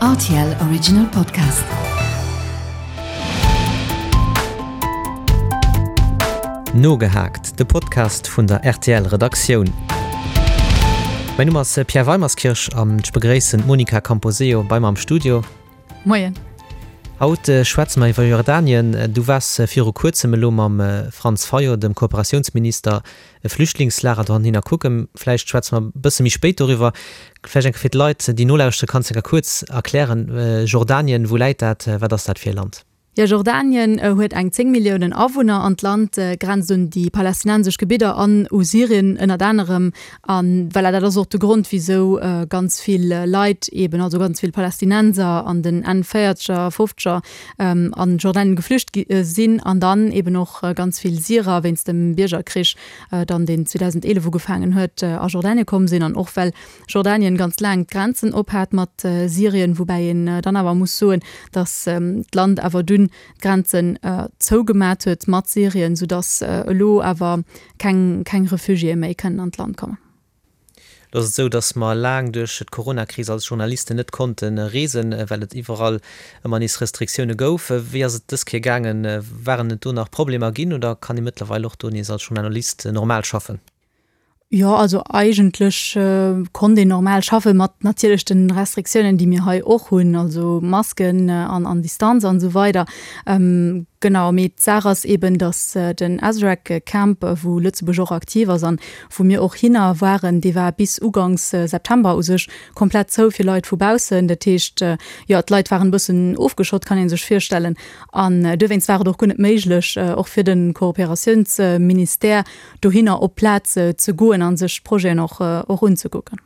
Rtl Original Podcast. Nogehaakt, de Podcast vun der rtl Redaktioun. Mäin Numm ass Pierre Weimerskirch an ech begréissen d'Monica Camposeo bei mer am Studio. Moien. Haut schwätze mer iwwer Jordanien. Du waars viru kuerzem elo mam Franz Fayot, dem Kooperatiounsminister, e Flüchtlingslager dohinner kucken. Vläicht schwätze mer e bësse méi spéit doriwwer. Vläicht eng Kéier fir d'Leit, déi nolauschteren, kanns de eng Kéier kuerz erklären, Jordanien, wou läit dat, wat ass dat fir e Land? Jo, Jordanien huet eng 10 Milliounen Awunner an d'Land grenzt un déi palästinensesch Gebidder an u Syrien ënnert anerem. A voilà, dat ass och de Grond, wisou ganz vill Leit eben, also ganz vill Palästinenser an den Enn Véierzeger, Fofzeger an Jordanien geflücht gi sinn an dann eben och ganz vill Syrer wéinst dem Biergerkrich dann, deen 2011 ugefaangen huet, a Jordanien komm sinn an och well Jordanien ganz laang d'Grenzen op hat mat Syrien, woubäi een dann awer muss soen, datt d'Land awer dunn d'Grenzen zougemat huet mat Syrien, soudatt elo awer keng keng Refugiéë méi kënnen an d'Land kommen. Lo ass et esou, datt mer laang duerch d'Coronakris als Journalisten net konnte reesen, well et iwwerall ëmmer nees Restriktioune gouf. Wéi ass et dës Kéier gaangen? Waren et do nach Problemer ginn oder kann ee mëttlerweil och do nees als Journalist normal schaffen? Jo, also eigentlech konnt een normal schaffen, mat natierlech den Restriktiounen, déi mir hei och hunn, also Masken an an Distanz an esou weider. Genau, mee d'Saach ass eben, datt den Azraq Camp, wou Lëtzebuerg och aktiv ass an wou mir och hinner waren, dee war bis uganks September u sech komplett zou fir Leit vu baussen. Dat heescht, jo, d'Leit waren e bëssen ofgeschott, kann ee sech virstellen. An dowéinst war et och guer net méiglech, och fir de Kooperatiounsministère, dohinner op d'Plaz ze goen a sech d'Projeten och och unzekucken.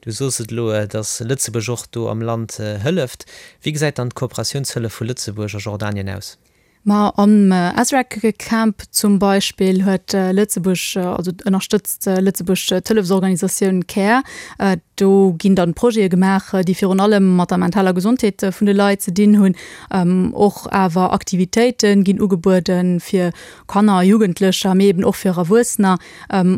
Du sos et elo, datt Lëtzebuerg och do am Land hëlleft. Wéi gesäit dann d'Kooperatiounshëllef vu Lëtzebuerg a Jordanien aus? Ma am Azraq Camp zum Beispill huet Lëtzebuerg, also ënnerstëtzt Lëtzebuerg d'Hëllefsorganisatioun Care. Do ginn dann Projete gemaach, déi virun allem mat der mentaler Gesondheet vun de Leit ze dinn hunn. Och awer Aktivitéite ginn ugebueden, fir Kanner a Jugendlecher, mee eben och fir Erwuessener,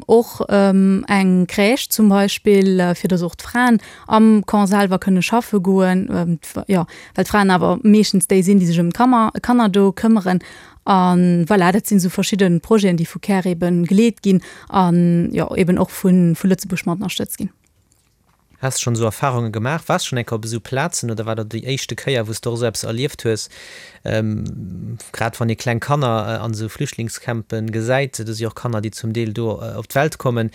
och eng Crèche zum Beispill, fir datt och d'Fraen am Camp selwer kënne schaffe goen, jo, well d'Fraen awer meeschtens déi sinn, déi sech ëm d'Kammer, Kanner do këmmeren. A voilà, dat sinn esou verschidde Projeten, déi vu Care ebe geleet ginn an, jo, eben och vu Lëtzebuerg mat ënnerstëtzt ginn. Has de schonn esou Erfahrunge gemaach? Waars schonn eng Kéier op esou Plazen oder war dat déi éischte Kéier, wou s de och esou eppes erlieft hues? Grad wann ee kleng Kanner an esou Flüchtlingscampen gesäit, do si och Kanner, déi zum Deel do op d'Welt kommen.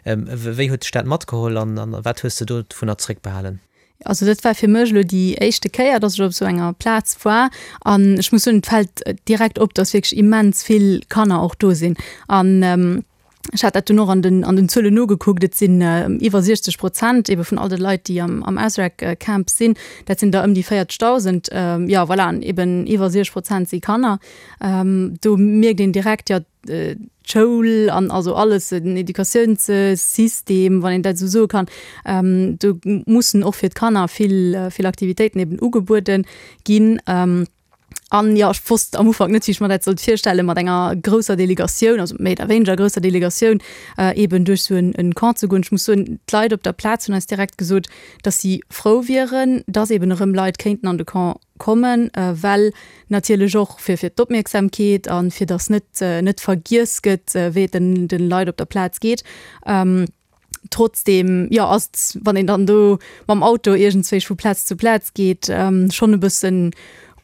Wéi huet dech dat matgeholl an wat hues de dovunner zréckbehalen? Also dat war fir mech elo déi éischte Kéier, dass ech op esou enger Plaz war an ech muss soen, et fält direkt op, dass wierklech immens vill Kanner och do sinn an Ech hat dat dunn och an den, an den Zuelen nogekuckt. Et sinn iwwer 60 Prozent ebe vun all de Leit, déi am, am Azraq Camp sinn. Dat sinn der ëm déi 40.000. Jo, voilà, an eben iwwer 60 Prozent si Kanner. Do mierkt een direkt, jo, d'Schoul an also alles, den Educatiounssystem, wann een dat esou soe kann, do mussen och fir d'Kanner vill, vill Aktivitéiten eben ugebuede ginn. An jo, ech wosst am Ufank net, wéi ech mer dat sollt virstellen, mat enger grousser Delegatioun, also méi oder wéineger grousser Delegatioun, eeben duerch esou en Camp ze goen. Ech muss soen, d'Leit op der Plaz hunn eis direkt gesot, dass si frou wieren, dass eeben erëm Leit kéinten an de Camp kommen, well natierlech och fir fir d'Opmierksamkeet a fir dass net net vergiess gëtt, wéi et den de Leit op der Plaz geet. Trotzdem, jo, ass et, wann een dann do mam Auto iergendzwéi vu Plaz zu Plaz geet, schonn e bëssen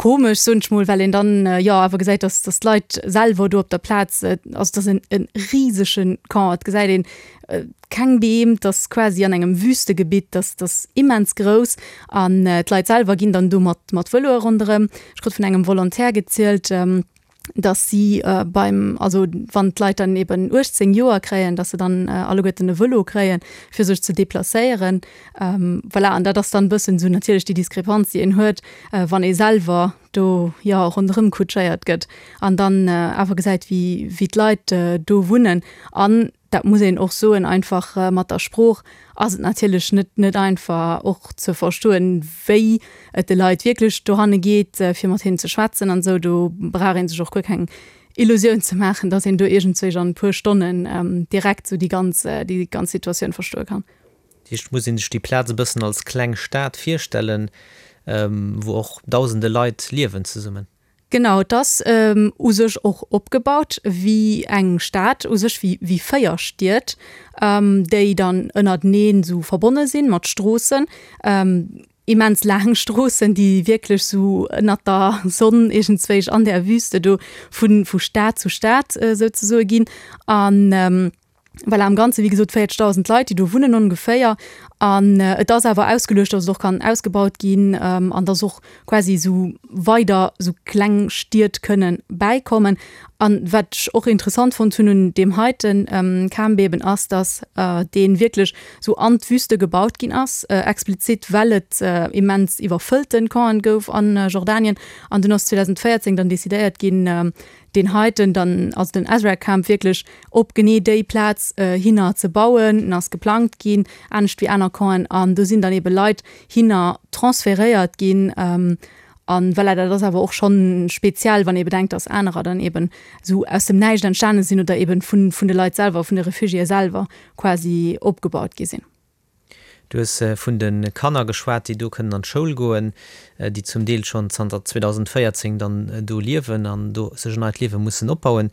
komesch, soen ech mol, well een dann, jo, awer gesäit, dass, dass d'Leit selwer do op der Plaz, also et ass en e risege Camp, et gesäit een keng Beem, et ass quasi an engem Wüstegebitt, dat ass immens grouss an d'Leit selwer ginn dann do mat mat Vëloe ronderëm. Ech krut vun engem Volontaire gezielt, dass si beim, also wann d'Leit dann eben 18 Joer kréien, dass se dann alleguerten e Vëlo kréien, fir sech ze deplacéieren. Voilà, an dat ass dann e bëssen esou natierlech déi Diskrepanz, déi een huet, wann ee selwer do, jo, ronderëm kutschéiert gëtt an dann awer gesäit, wéi, wéi d'Leit do wunnen. An dat muss een och soen, einfach mat der Sprooch ass et natierlech net net einfach och ze verstoen, wéi et de Leit wierklech dohanne geet, fir mat hinnen ze schwätzen an esou. Do brauch ee sech och guer keng Illusioun ze maachen, datt een do iergendzwéich an e puer Stonnen direkt esou déi ganz déi ganz Situatioun verstoe kann. heescht, et muss ee sech déi Plaz e bëssen als kleng Stad virstellen, wou och dausende Leit liewen zesummen. Genau, et ass u sech och opgebaut wéi eng Stad, u sech wéi 4 Stied, déi dann ënnerteneen esou verbonne sinn mat Stroossen, immens laang Stroossen, déi wierklech esou ënnert der Sonn iergendzwéich an där Wüste do vu Stad zu Stad souzesoe ginn. An Voilà, am Ganze wéi gesot 40.000 Leit, déi do wunnen ongeféier. An et ass awer ausgeluecht, datt et och kann ausgebaut ginn an datt och quasi esou weider esou kleng Stied kënne bäikommen. An wat ech och interessant fonnt hunn un deem heite Camp eben ass, datt dee wierklech esou an d'Wüste gebaut ginn ass, explizit well et immens iwwerfëllte Campen gouf a Jordanien. An dunn ass 2014 dann decidéiert ginn, deen heiten dann, also den Azraq Camp wierklech op genee déi Plaz hinner ze bauen. En ass geplangt ginn, anescht wéi aner Campen, an do sinn dann ebe Leit hinner transferéiert ginn. An voilà, dat ass awer och schonn speziell, wann ee bedenkt, dass anerer dann eben esou aus dem Näischt entstane sinn oder eben vun de Leit selwer, vun de Refugiéë selwer quasi opgebaut gi sinn. Du hues vun de Kanner geschwat, déi do kënnen an d'Schoul goen, déi zum Deel schonn zanter 2014 dann do liewen an do sech en neit Liewe mussen opbauen.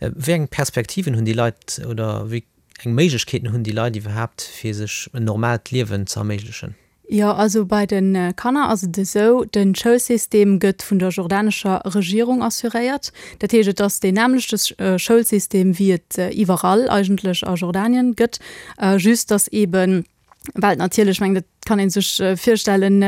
Wéi eng Perspektiven hunn déi Leit oder wéi eng Méiglechkeeten hunn déi Leit iwwerhaapt, fir sech en normaalt Liewen ze erméiglechen? Jo, also bei de Kanner ass et esou, de Schoulsystem gëtt vun der jordanescher Regierung assuréiert. Dat heescht, et ass deen nämmlechte Schoulsystem, wéi et iwwerall eigentlech a Jordanien gëtt. Just dass eben, well natierlech, ech mengen, dat kann ee sech virstellen,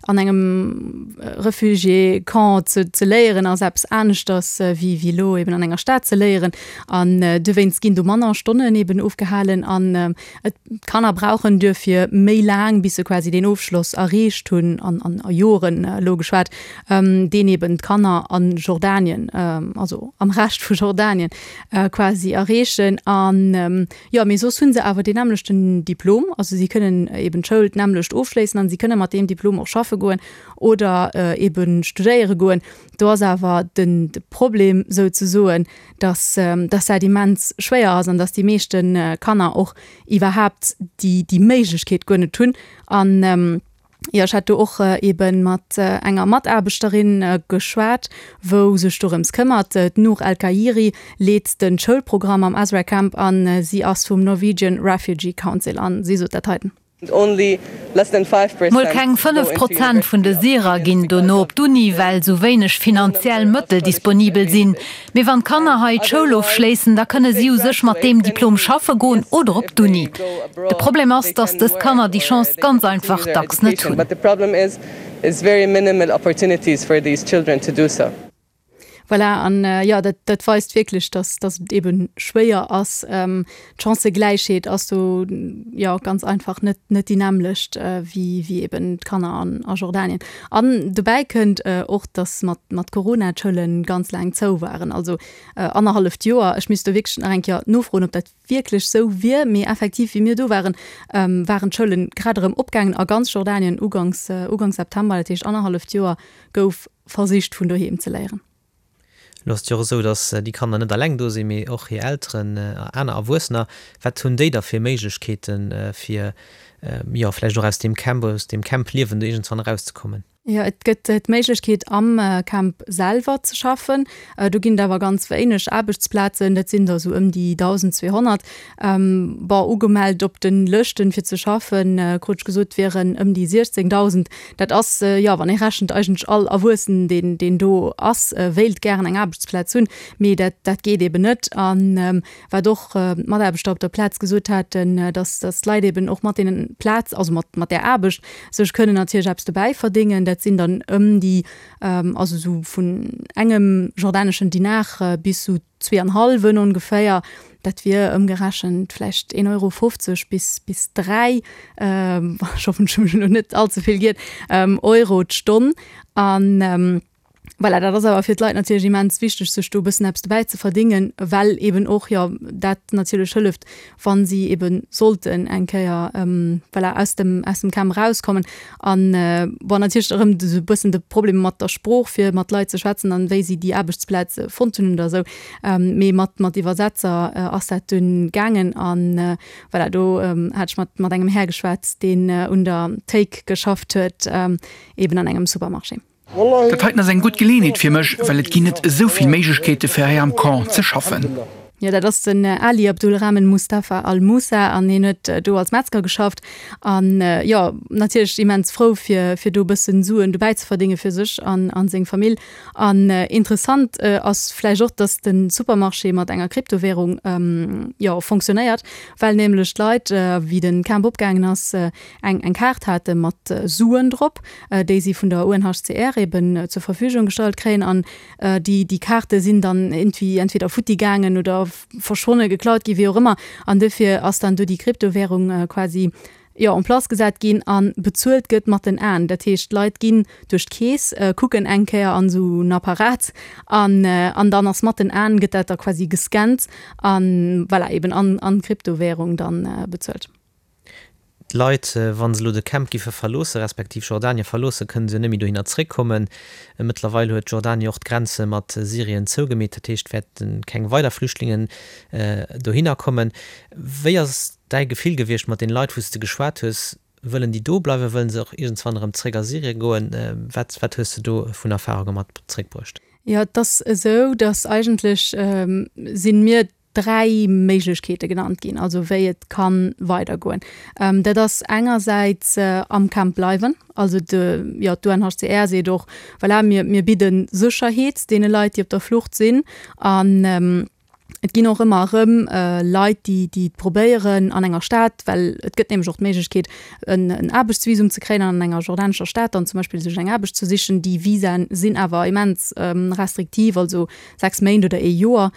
an engem Refugiécamp ze ze léieren ass eppes aneschters wéi wéi elo eben an enger Stad ze léieren. An dowéinst ginn do manner Stonnen eben ofgehalen an et d'Kanner brauchen duerfir méi laang, bis se quasi deen Ofschloss erreecht hunn, an an a Joren elo geschwat, deen eben d'Kanner a Jordanien, also am Rescht vu Jordanien quasi erreechen. An jo, mee soss hu se awer deen nämmlechten Diplom, also si kënnen eben d'Schoul d'nämmlecht ofschléissen an si kënne mat deem Diplom och schaffe goen oder eben studéiere goen. Do ass awer den de Problem souzesoen, dass dass dat immens schwéier ass an dass déi meeschte Kanner och iwwerhaapt déi déi Méiglechkeet guer net hunn. An Jo, ech hat do och ebe mat enger Mataarbechterin geschwat, wou sech dorëms këmmert. D'Nour El Khairi leet de Schoulprogramm am Azraq Camp an si ass vum Norwegian Refugee Council an si sot dat heiten. Mol keng 5 Prozent vun de Syrer ginn dono op d'Uni, well sou wéineg finanziell Mëttel disponibel sinn. Mee wann d'Kanner hei d'Schoul ofschléissen, da kënne si u sech mat deem Diplom schaffe goen oder op d'Uni. De Problem ass, datt dës Kanner déi Chance ganz einfach dacks net hunn. Voilà, an jo, dat, dat weist wierklech, datt, datt et eebe schwéier ass. D'Chancëgläichheet ass do jo ganz einfach net, net déi nämmlecht wéi, wéi eeben d'Kanner an, a Jordanien. An dobäi kënnt och, datt mat, mat Corona d'Schoule ganz laang zou waren, also annerhalleft Joer. Ech misst do wierklech nach eng Kéier nofroen, ob dat wierklech sou wier, mee effektiv, wéi mir do waren, waren d'Schoule grad erëm opgaangen a ganz Jordanien uganks, uganks September, dat heescht annerhalleft Joer gouf versicht vun doheem ze léieren. Elo ass et jo och esou, datt déi Kanner net alleng do sinn, mee och hir Elteren a aner Erwuessener. Wat hunn déi da fir Méiglechkeeten, fir jo vläicht och aus deem Camp, aus deem Camp-Liewen do iergendwann erauszekommen? Jo, et gëtt d'Méiglechkeet am Camp selwer ze schaffen. Do ginn et awer ganz wéineg Aarbechtsplazen, dat sinn der esou ëm déi 1.200. Bon, ugemellt op de Lëschten fir ze schaffen, krut ech gesot, wieren ëm déi 16.000. Dat ass, jo, wann ee rechent, eigentlech all Erwuessen, deen, deen do ass, wéilt gären eng Aarbechtsplaz hunn, mee dat, dat geet eben net. A wat och d'Mataarbechter op der Plaz gesot haten, dass, dass d'Leit eben och mat deenen Plaz, also mat, mat där Aarbecht sech kënnen natierlech eppes dobäi verdéngen. Dat sinn dann ëm déi, also esou vun engem jordaneschen Dinar bis esou zwee an hallwen ongeféier, dat wier ëmgerechent vläicht een Euro 50 bis bis 3, ech hoffen ech hu mech elo net all ze vill giert, Euro d'Stonn. An. Voilà, dat ass awer fir d'Leit natierlech immens wichteg, sech do e bëssen eppes dobäi ze verdéngen, well eben och, jo, dat natierlech hëlleft, wa si ebe sollten eng Kéier, voilà, aus dem, aus dem Camp erauskommen. An, bon, natierlech erëm esou e bëssen de Problem mat der Sprooch, fir mat Leit ze schwätzen an wéi si déi Aarbechtsplaz fonnt hunn oder esou. Mee mat, mat Iwwersetzer ass dat dunn gaangen. An, voilà, do hat ech mat, mat engem Här geschwat, deen un der Théik geschafft huet, eben an engem Supermarché. Dat heiten ass eng gutt Geleeënheet fir mech, well et ginn net esou vill Méiglechkeete fir hei am Camp ze schaffen. Jo, dat ass den Ali Abdulrahman Mustafa Al Moussa an hien huet do als Metzger geschafft an jo natierlech immens frou fir fir do e bëssen Suen dobäi ze verdénge fir sech an an seng Famill. An interessant ass vläicht och, datt de Supermarché mat enger Kryptowärung jo fonctionnéiert, well nämlech d'Leit wéi de Camp opgaangen ass eng eng Kaart hate mat Suen drop, déi si vun der UNHCR eben zur Verfügung gestallt kréien an déi déi Kaarte sinn dann iergendwéi entweder futti gaangen oder verschwonnen, geklaut ginn, wéi och ëmmer. An dofir ass dann do déi Kryptowärung quasi, jo, en place gesat ginn a bezuelt gëtt mat den Aen. Dat heescht, d'Leit ginn duerch d'Keess, kucken eng Kéier an esou en Apparat an an dann ass mat den Aen gëtt dat da quasi gescannt an, voilà, eben an an Kryptowärung dann bezuelt. D'Leit, wa se elo de Camp giffe verloossen, respektiv Jordanien verloossen, kënne se jo net méi dohinner zréckkommen. Mëttlerweil huet Jordanien och d'Grenze mat Syrien zougemeet, dat heescht, wäerte keng weider Flüchtlingen dohinner kommen. Wéi ass däi Gefill gewiescht mat den Leit, wou s de geschwat hues? Wëllen déi do bleiwen? Wëllen se och iergendswann erëm zréck a Syrien goen? Wat, wat hues de do vun Erfarunge mat zréckbruecht? Jo, et ass esou, datt eigentlech si mir 3 Méiglechkeete genannt ginn, also wéi et ka weidergoen. Dat ass engersäits am Camp bleiwen, also de, jo, d'UNHCR seet och, voilà, mir, mir bidde Sécherheet deene Leit, déi op der Flucht sinn. An et ginn och ëmmer erëm Leit, déi, déi et probéieren an enger Stad, well et gëtt nämlech och d'Méiglechkeet, en, en Aarbechtsvisum ze kréien an an enger jordanescher Stad dann zum Beispill sech eng Aarbecht ze sichen. Déi Visaen sinn awer immens restriktiv, also 6 Méint oder ee Joer.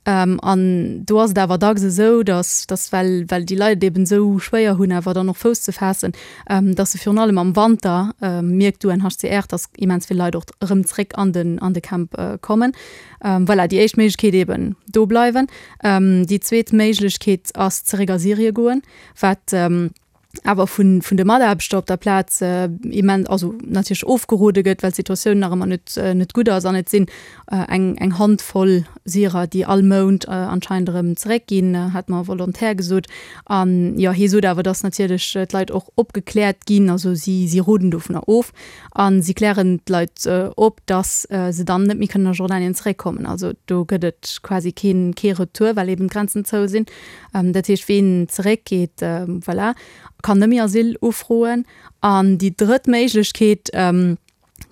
An do ass et awer dacks esou, datt, datt well, well déi Leit et eben esou schwéier hunn, awer dann och Fouss ze faassen, datt se virun allem am Wanter, mierkt d'UNHCR, datt immens vill Leit och erëm zréck an den, an de Camp kommen. Voilà, déi éischt Méiglechkeet eben do bleiwen. Déi zweet Méiglechkeet ass zeréck a Syrie goen, wat, awer vun vun de Mataarbechter op der Plaz immens, also natierlech ofgerode gëtt, well d'Situatioun nach ëmmer net net gutt ass an et sinn eng eng Handvoll Syrer, déi all Mount anscheinend erëm zeréckginn, hat mer e Volontaire gesot. An jo, hie sot awer, datt natierlech d'Leit och opgekläert ginn, also si si roden dovunner of a si klären d'Leit op, datt se dann net méi kënnen a Jordanien zeréckkommen. Also do gëtt et quasi keen kee Retour, well eben d'Grenzen zou sinn. Dat heescht, ween zeréckgeet, voilà, kann net méi Asyl ufroen. An déi drëtt Méiglechkeet,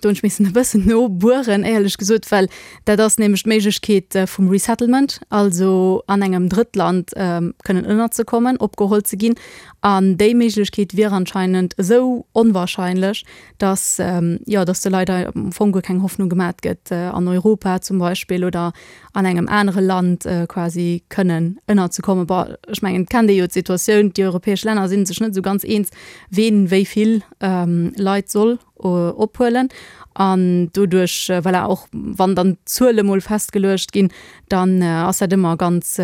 do hunn ech missen e bëssen nobueren, éierlech gesot, well dat ass nämlech d'Méiglechkeet vum Resettlement, also an engem Drëttland kënnen ënnerzekommen, opgeholl ze ginn. An déi Méiglechkeet wier anscheinend esou onwahrscheinlech, dass, jo, dass de Leit am Fong guer keng Hoffnung gemat gëtt, an Europa zum Beispill oder an engem anere Land quasi kënnen ënnerzekommen. Bon, ech mengen, et kennt ee jo d'Situatioun, déi europäesch Länner si sech net esou ganz eens, ween wéi vill Leit soll ophuelen. An doduerch, voilà, och wann dann d'Zuele mol festgeluecht ginn, dann ass dat ëmmer ganz,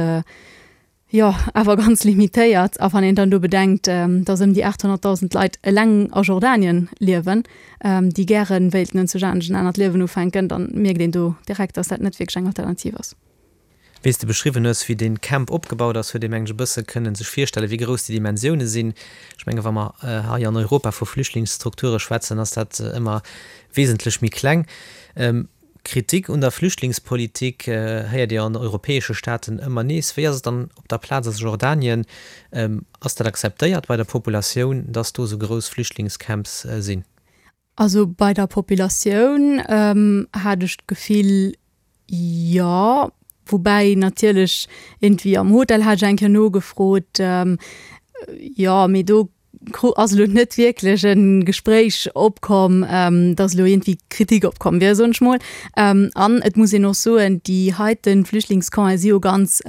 Jo, awer ganz limitéiert. A wann een dann do bedenkt, datt ëm déi 800.000 Leit eleng a Jordanien liewen, déi gäre wéilten en zujanesch en anert Liewen ufänken, dann mierkt een do direkt, datt dat net wierklech eng Alternativ ass. Wéi s de beschriwwen hues, wéi dee Camp opgebaut ass, huet ee mengen ech e bësse kënnen sech virstellen, wéi grouss déi Dimensioune sinn. Ech menge wa mer hei an Europa vu Flüchtlingsstrukture schwätzen, ass dat ëmmer wesentlech méi kleng. Kritik un der Flüchtlingspolitik héiert Dir an europäesche Staaten ëmmer nees. Wéi ass et dann op der Plaz a Jordanien? Ass dat akzeptéiert bei der Populatioun, dass do esou grouss Flüchtlingscamps sinn? Also bei der Populatioun hat ech d'Gefill, jo. Woubäi natierlech iergendwéi am Hotel hat ech eng Kéier nogefrot, jo, mee do ass elo net wierklech e Gespréich opkomm, dass elo iergendwéi Kritik opkomm wier, soen ech mol. An et muss een och soen, déi heite Flüchtlingscampe si jo ganz.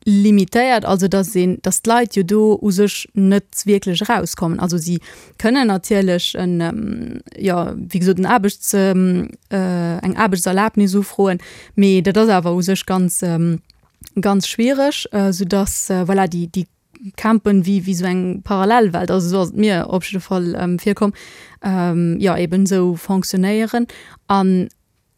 limitéiert, also dass een, dass d'Leit jo do u sech net wierklech erauskommen. Also si kënnen natierlech en, jo, wéi gesot, en Aarbechts, eng Aarbechtserlaabnis ufroen, mee dat ass awer u sech ganz, ganz schwiereg, soudass, voilà, déi, déi Campen wéi, wéi esou eng Parallelwelt, also esou ass et mir op jidde Fall virkomm, jo, eben esou fonctionnéieren. An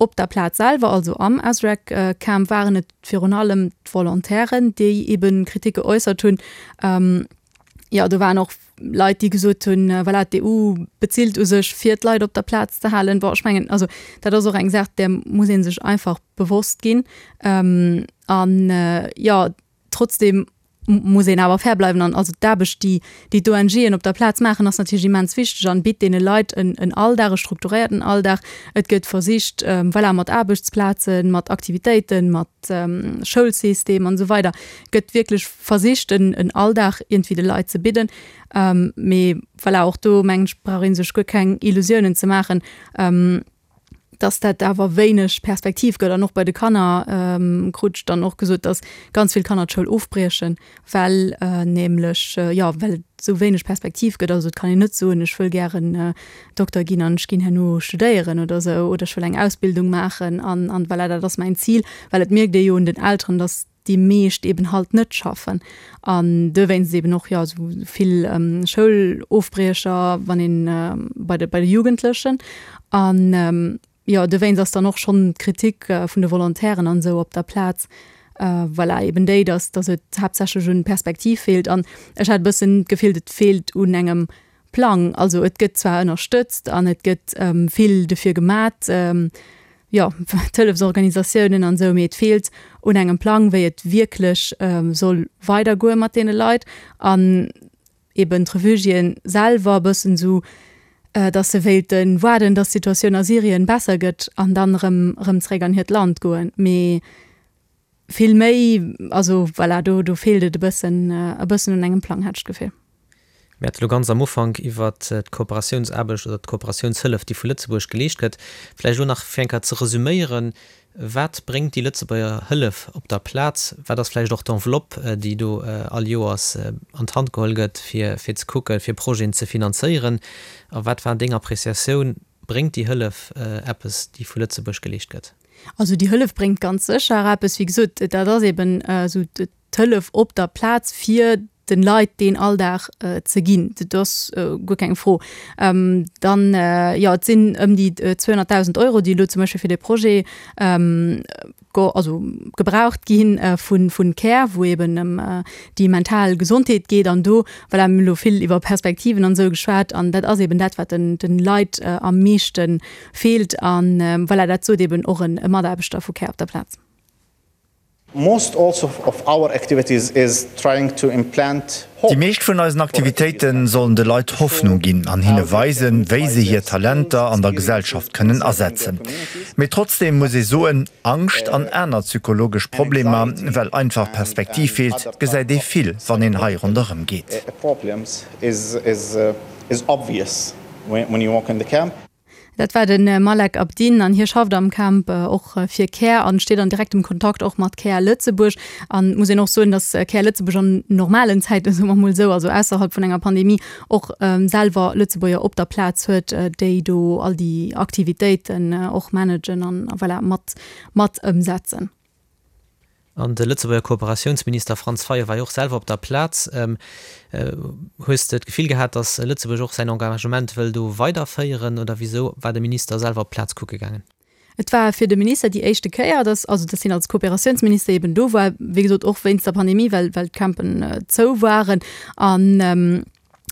Op der Plaz selwer, also am Azraq Camp, waren et virun allem d'Volontairen, déi eben Kritik geäussert hunn. Jo, do waren och Leit, déi gesot hunn, voilà, d'EU bezilt u sech, fir d'Leit op der Plaz ze halen. Bon, ech mengen, also dat ass och eng Saach, där muss ee sech einfach bewosst ginn. An jo, Trotzdem muss een awer fair bleiwen an also d'Aarbecht, déi déi d'ONGen op der Plaz maachen, ass natierlech immens wichteg an bitt deene Leit en en Alldag, e strukturéierten Alldag. Et gëtt versicht, voilà, mat Aarbechtsplazen, mat Aktivitéiten, mat Schoulsystem an esou weider gëtt wierklech versicht en en Alldag iergendwéi de Leit ze bidden. Mee voilà, och do mengen ech brauch ee sech guer keng Illusiounen ze maachen. dass dat awer wéineg Perspektiv gëtt. An och bei de Kanner krut ech dann och gesot, dass ganz vill Kanner d'Schoul ofbriechen, well nämlech, jo, well et esou wéineg Perspektiv gëtt. Also et kann een net soen, ech wëll gären Dokter ginn an ech ginn herno studéieren oder esou oder ech wëll eng Ausbildung maachen an an voilà, dat ass mäin Zil. Well et mierkt ee jo un den Elteren, dass déi meescht eben halt net schaffen an dowéinst eben och jo esou vill Schoulofbriecher wann een bei de bei de Jugendlechen an jo dowéinst ass dann och schonn d'Kritik vun de Volontairen an esou op der Plaz voilà eben déi, datt datt et haaptsächlech un Perspektiv feelt an ech hat e bëssen d'Gefill et feelt un engem Plang. Also et gëtt zwar ënnerstëtzt an et gëtt vill dofir gemat, jo, d'Hëllefsorganisatiounen an esou, mee et feelt un engem Plang, wéi et wierklech soll weidergoe mat deene Leit an eben d'Refugiéen selwer e bëssen esou, datt se wéilte waarden, datt d'Situatioun a Syrien besser gëtt an dann erëm erëm zeréck an hiert Land goen. Mee vill méi, also voilà, do do feelt et e bëssen e bëssen un engem Plang, hat ech d'Gefill. Mir hate lo ganz am Ufank iwwert d'Kooperatiounsaarbecht oder d'Kooperatiounshëllef, déi vu Lëtzebuerg geleescht gëtt. Vläicht elo nach fir eng Kéier ze resüméieren, Wat bréngt déi Lëtzebuerger Hëllef op der Plaz? Wat ass vläicht och d'Enveloppe, déi do all Joers an d'Hand geholl gëtt, fir fir ze kucken, fir Projeten ze finanzéieren? A wat war deng Appreciatioun? Bréngt déi Hëllef eppes, déi vu Lëtzebuerg geleescht gëtt? Also déi Hëllef bréngt ganz sécher eppes. Wéi gesot, dat ass eben esou d'Hëllef op der Plaz, fir den Leit deen Alldag ze ginn. Dat ass guer keng Fro. Dann, jo, et sinn ëm déi 200.000 Euro, déi elo zum Beispill fir dee Projet also gebraucht gi vun Care, wou eben ëm déi mental Gesondheet geet. An do, voilà, mir hunn elo vill iwwer Perspektiven an esou geschwat, an dat ass eben dat, wat den Leit am meeschte feelt. An voilà, dat sot eben och e Mataarbechter vu Care op der Plaz. Most also of our activities is trying to implant hope. Déi meescht vun eisen Aktivitéite sollen de Leit Hoffnung ginn an hinne weisen, wéi se hir Talenter an der Gesellschaft kënnen asetzen. Mee trotzdeem muss ee soen, Angscht an aner psychologesch Problemer, well einfach Perspektiv feelt, gesäit ee vill, wann een hei ronderëm geet. Dat war de Malek Abdin an hie schafft am Camp och fir Care an steet an direktem Kontakt och mat Care Lëtzebuerg. An et muss een och soen, datt Care Lëtzebuerg an normalen Zäiten, soe mer mol esou, also ausserhalb vun enger Pandemie, och selwer Lëtzebuerger op der Plaz huet, déi do all déi Aktivitéiten och managen an voilà mat mat ëmsetzen. An de Lëtzebuerger Kooperatiounsminister Franz Fayot war jo och selwer op der Plaz. Hues de d'Gefill gehat, datt Lëtzebuerg och säin Engagement wëll do weiderféieren oder wisou war de Minister selwer op d'Plaz kucke gaangen? Et war fir de Minister déi éischte Kéier, datt, also datt hien als Kooperatiounsminister eben do war, wéi gesot och wéinst der Pandemie, well well d'Campen zou waren. An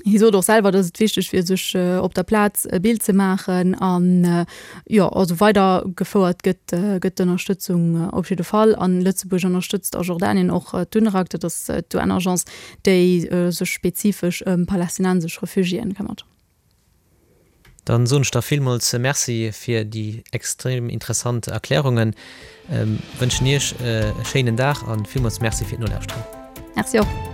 Hie sot och selwer, datt et wichteg wier, sech op der Plaz e Bild ze maachen an jo, also weider gefouert gëtt gëtt d'Ënnerstëtzung op jidde Fall. An Lëtzebuerg ënnerstëtzt a Jordanien och d'UNRWA, dat ass d'UN-Agence, déi sech spezifesch ëm palästinensesch Refugiéen këmmert. Dann soen ech der villmools Merci fir déi extrem interessant Erklärungen, wënschen Iech e schéinen Dag an villmools Merci fir d'Nolauschteren. Merci och.